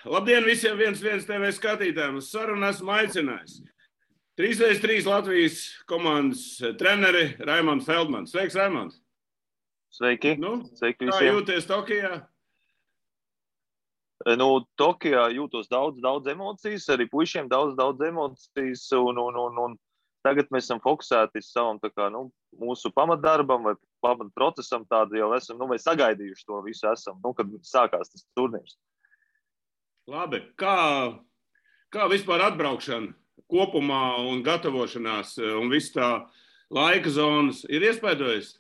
Labdien visiem 1-1 TV skatītājiem. Uz sarunu esmu aicinājis 3x3 Latvijas komandas treneri Raimonds Feldmans. Sveiks, Raimonds! Sveiki! Sveiki visiem! Kā jūties Tokijā? Tokijā jūtos daudz emocijas, arī puišiem daudz emocijas, un tagad mēs esam fokusēti savam mūsu pamatdarbam vai pamatprocesam, tādu jau esam, vai sagaidījuši to visu esam, kad sākās tas turnīrs. Labi, kā vispār atbraukšana kopumā un gatavošanās un viss tā laika zonas ir iespaidojis?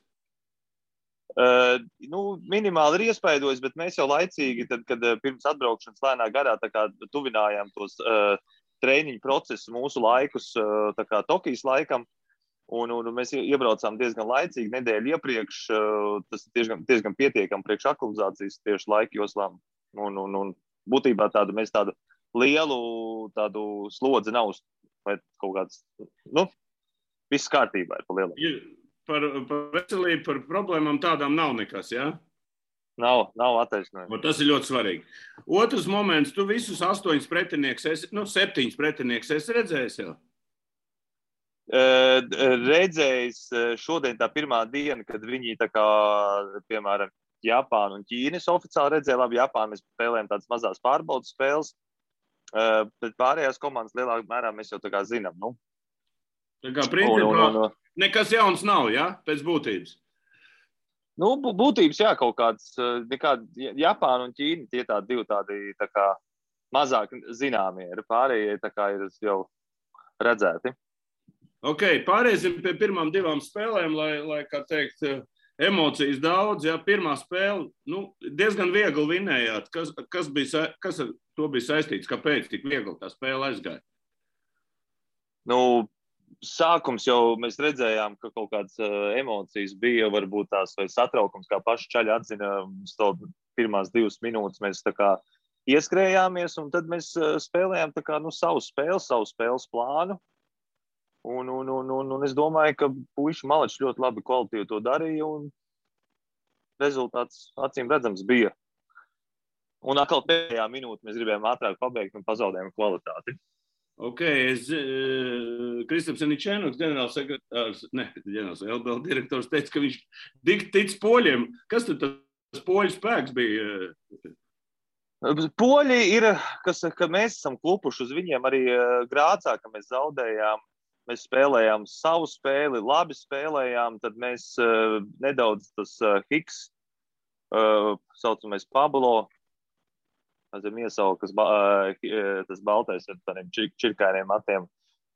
Minimāli ir iespaidojis, bet mēs jau laicīgi, tad, kad pirms atbraukšanas lēnā garā tuvinājām tos treniņu procesus mūsu laikus Tokijas laikam, un mēs iebraucām diezgan laicīgi, nedēļu iepriekš, tas diezgan pietiekam priekš aklimizācijas tieši laika joslām, un būtībā mēs tādu lielu slodzi nav, vai kaut kāds, viss kārtībā ir pa lielu. Par veselību, par problēmām tādām nav nekas, jā? Nav attaisnojumi. Tas ir ļoti svarīgi. Otrs moments, tu visus 8 pretinieks, 7 pretinieks esi redzējis jau? Redzējis šodien tā pirmā diena, kad viņi piemēram, Japānu un Ķīnas oficiāli redzēja. Labi, Japānu mēs spēlējam tādas mazās pārbaudas spēles, bet pārējās komandas lielākā mērā mēs jau zinām. Tā kā principā nekas jauns nav, ja? Pēc būtības? Būtības, jā, kaut kāds, Japāna un Ķīna, tie divi mazāk zināmie ir, pārējie ir jau redzēti. Ok, pārēsim pie pirmām 2 spēlēm, lai kā teikt, emocijas daudz, ja? Pirmā spēle, diezgan viegli vinējāt. Kas ar to bija saistīts? Kāpēc tik viegli tā spēle aizgāja? Sākums jau mēs redzējām, ka kaut kādas emocijas bija, varbūt tās vai satraukums, kā paši čaļi atzina, pirmās 2 minūtes mēs ieskrējāmies, un tad mēs spēlējām savu spēles plānu, un es domāju, ka puiši maleči ļoti labi kvalitīvi to darīja, un rezultāts acīm redzams bija. Un atkal pēdējā minūte mēs gribējām ātrāk pabeigt un pazaudējām kvalitāti. Ok, Kristaps Aničēnoks, ģenerālsekretārs, LBL direktors, teica, ka viņš tic poļiem. Kas tad tas poļu spēks bija? Poļi ir, ka mēs esam klupuši uz viņiem arī Grācā, ka mēs zaudējām. Mēs spēlējām savu spēli, labi spēlējām, tad mēs nedaudz tas Hiks, saucamais Pablo, tas baltais ar tādiem čirkainiem matiem,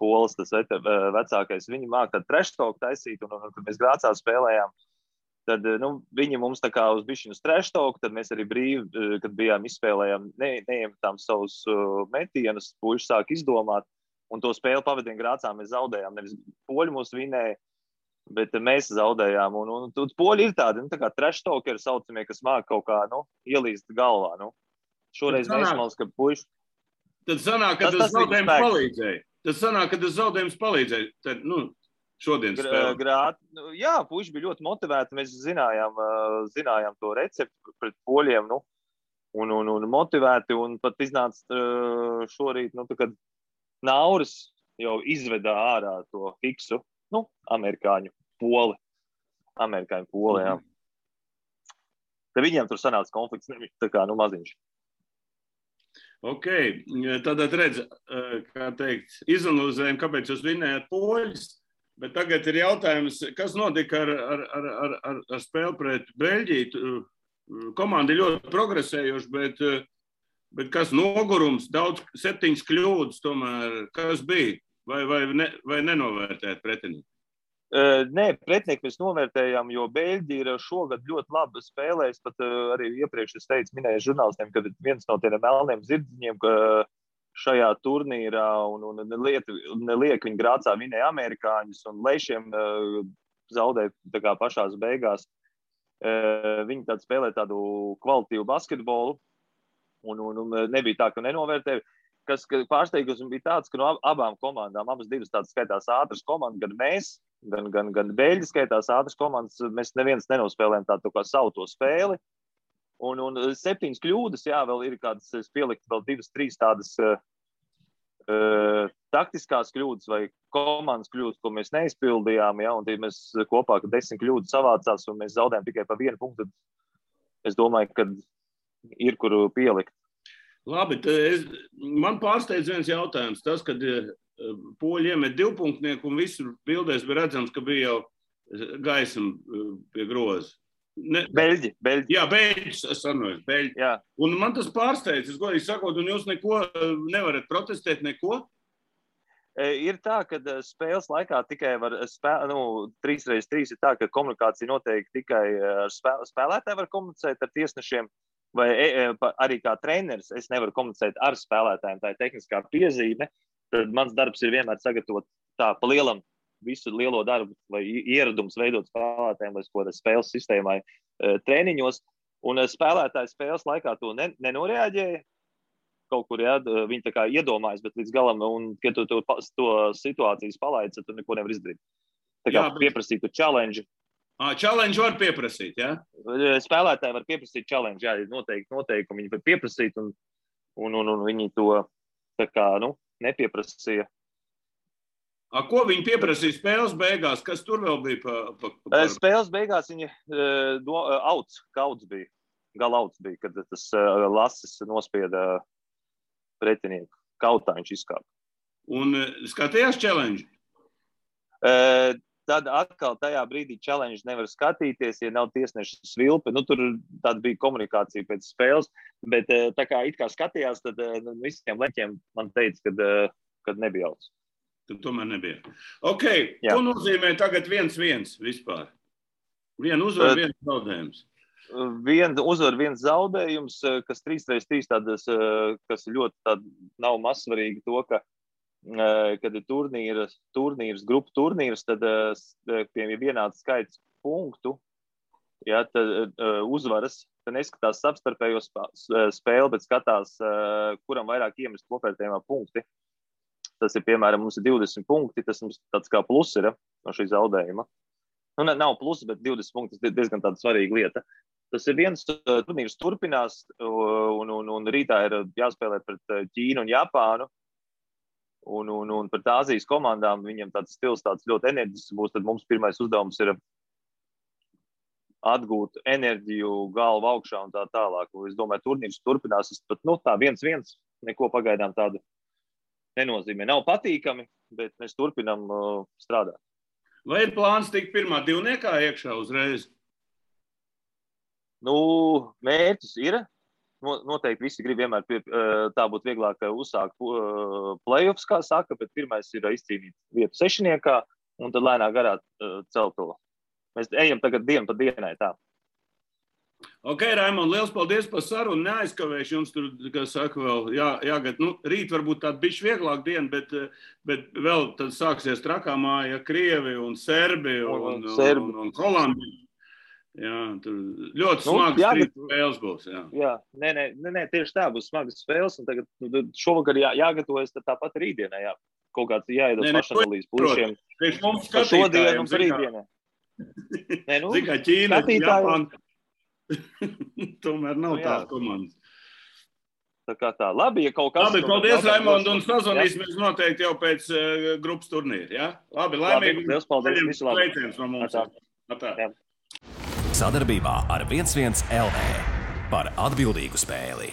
polis, tas vecākais, viņi māk tādu treštoku taisīt, un kad mēs Grācā spēlējām, tad viņi mums uz bišķinu treštoku, tad mēs arī brīvi, kad bijām izspēlējām, neiemetām savus metienus, puiši sāk izdomāt, un to spēli pavadien Grācā mēs zaudējām, nevis poļi mūs vinēja, bet mēs zaudējām, un poļi ir tādi, treštoki ir saucamie, kas māk kaut kā, ielīst galvā, Šoreiz mēs malas, ka puiši... Tad sanāk, ka tas zaudējums palīdzēja. Tad, šodien spēlē. Jā, puiši bija ļoti motivēti. Mēs zinājām to recepti pret poļiem, un motivēti. Un pat iznāca šorīt, kad Nauris jau izvedā ārā to Hiksu, amerikāņu poli, jā. Tad viņiem tur sanāca konflikts, maziņš. Ok, tātad redz, kā teikt, izanalizējam, kāpēc jūs vinējāt poļus, bet tagad ir jautājums, kas notika ar spēli pret Beļģiju. Komanda ir ļoti progresējuši, bet kas nogurums, 7 kļūdas tomēr, kas bija, vai nenovērtēt pretinieku? Nē, pretinieki mēs novērtējām, jo Beļģi ir šogad ļoti labi spēlējis, pat arī iepriekš es minēju žurnālistiem, ka viens no tiem melniem zirdziņiem šajā turnīrā un neliek viņi Grācā vinēja amerikāņus un lešiem zaudēja pašās beigās. Viņi spēlē tādu kvalitīvu basketbolu un nebija tā, ka nenovērtēja. Kas pārsteigums bija tāds, ka no abām komandām, abas divas tādas skaitās ātras komandas, gan mēs, gan Beļģi skaitās ātras komandas, mēs neviens nenospēlējām tādu kā savu to spēli. Un 7 kļūdas, jā, vēl ir kādas, es pieliktu vēl 2-3 tādas taktiskās kļūdas vai komandas kļūdas, ko mēs neizpildījām, ja, un mēs kopā, ka 10 kļūdas savācās, un mēs zaudējām tikai pa 1 punktu, tad es domāju, ka ir, kur pielikt. Labi, man pārsteidz viens jautājums. Tas, kad poļi iemet 2 punktnieku un visur bildēs bija redzams, ka bija jau gaisma pie groza. Beļģi. Jā, beļģi. Jā. Un man tas pārsteidz, es godīgi sakot, un jūs neko nevarat protestēt, neko? Ir tā, ka spēles laikā tikai var 3x3 ir tā, ka komunikācija notiek tikai ar spēlētāju var komunicēt ar tiesnešiem, vai arī kā treneris es nevaru komunicēt ar spēlētājiem, tā ir tehniskā piezīme. Tad mans darbs ir vienmēr sagatavot tā pa lielam visu lielo darbu, lai ieradums veidot spēlētājiem, lai ko spēles sistēmai treniņos. Un spēlētāji spēles laikā to nenoreaģēja. Kaut kur, jā, viņi tā kā iedomājas, bet līdz galam, un, kad tu to situācijas palaidzi, tad tu neko nevar izdarīt. Tā kā pieprasītu challenge. Challenge var pieprasīt, jā? Spēlētāji var pieprasīt challenge, jā, noteikumi viņi var pieprasīt, un viņi to tā kā, nepieprasīja. Ko viņi pieprasīja spēles beigās? Kas tur vēl bija? Spēles beigās viņi kauds bija. Galauts bija, kad tas lasis nospieda pretinieku. Kautā viņš izkāpa. Un skatījās challenge? Tad atkal tajā brīdī challenge nevar skatīties, ja nav tiesneša svilpe. Tur tāda bija komunikācija pēc spēles, bet tā kā it kā skatījās, tad visiem leņķiem man teica, kad nebija auts. Tad tomēr nebija. Ok, ko nozīmē tagad 1-1 vispār? Viena uzvara, viens zaudējums. Viena uzvara, viens zaudējums, kas 3x3 tādas, kas ļoti tāda nav mazsvarīgi to, ka, kad ir turnīrs, grupu turnīrs, tad pie vienāds skaits punktu, ja, tad uzvaras, tad neskatās savstarpējo spēli, bet skatās, kuram vairāk iemest kopvērtējumā punkti. Tas ir, piemēram, mums ir 20 punkti, tas mums tāds kā plus ir no šī zaudējuma. Nav plus, bet 20 punkti ir diezgan tāda svarīga lieta. Tas ir viens turnīrs turpinās, un rītā ir jāspēlē pret Ķīnu un Japānu, un pret Āzijas komandām viņam tāds stils tāds ļoti enerģisks būs, tad mums pirmais uzdevums ir atgūt enerģiju, galvu augšā un tā tālāk. Es domāju, turnīrs turpinās, es pat, tā 1-1, neko pagaidām tādu nenozīmē. Nav patīkami, bet mēs turpinām strādāt. Vai ir plāns tikt pirmā divniekā iekšā uzreiz? Mērķis ir. Noteikti visi grib vienmēr tā būtu vieglāk uzsākt play-offs, kā saka, bet pirmais ir izcīnīt vietu sešniekā un tad lēnā garā celt to. Mēs ejam tagad dienu pa dienai tā. Ok, Raimond, liels paldies par sarunu. Neaizkavēšu jums tur, kā saka, vēl jāgad. Rīt varbūt tāda bišķi vieglāk diena, bet vēl tad sāksies trakā māja Krievi un Serbi un Holandi. Jā, tur ļoti smagas trīs spēles būs. Jā, nē, tieši tā būs smagas spēles, un tagad šovakar jāgatavojas tāpat rītdienā, jā. Kaut kāds jāiedos pašanalīzes pušiem. Par šodien un par rītdienā. Zikā Ķīna, Japāna. Tomēr nav tās komandas. Tā kā tā. Labi, ja kaut kas... Labi, paldies, Raimond, un sazvanīsimies noteikti jau pēc grupas turnīra, jā? Labi, laimīgi. Liels paldies, visu labi. Sveiciens no mums. Atā. Sadarbībā ar 11 LV par atbildīgu spēli.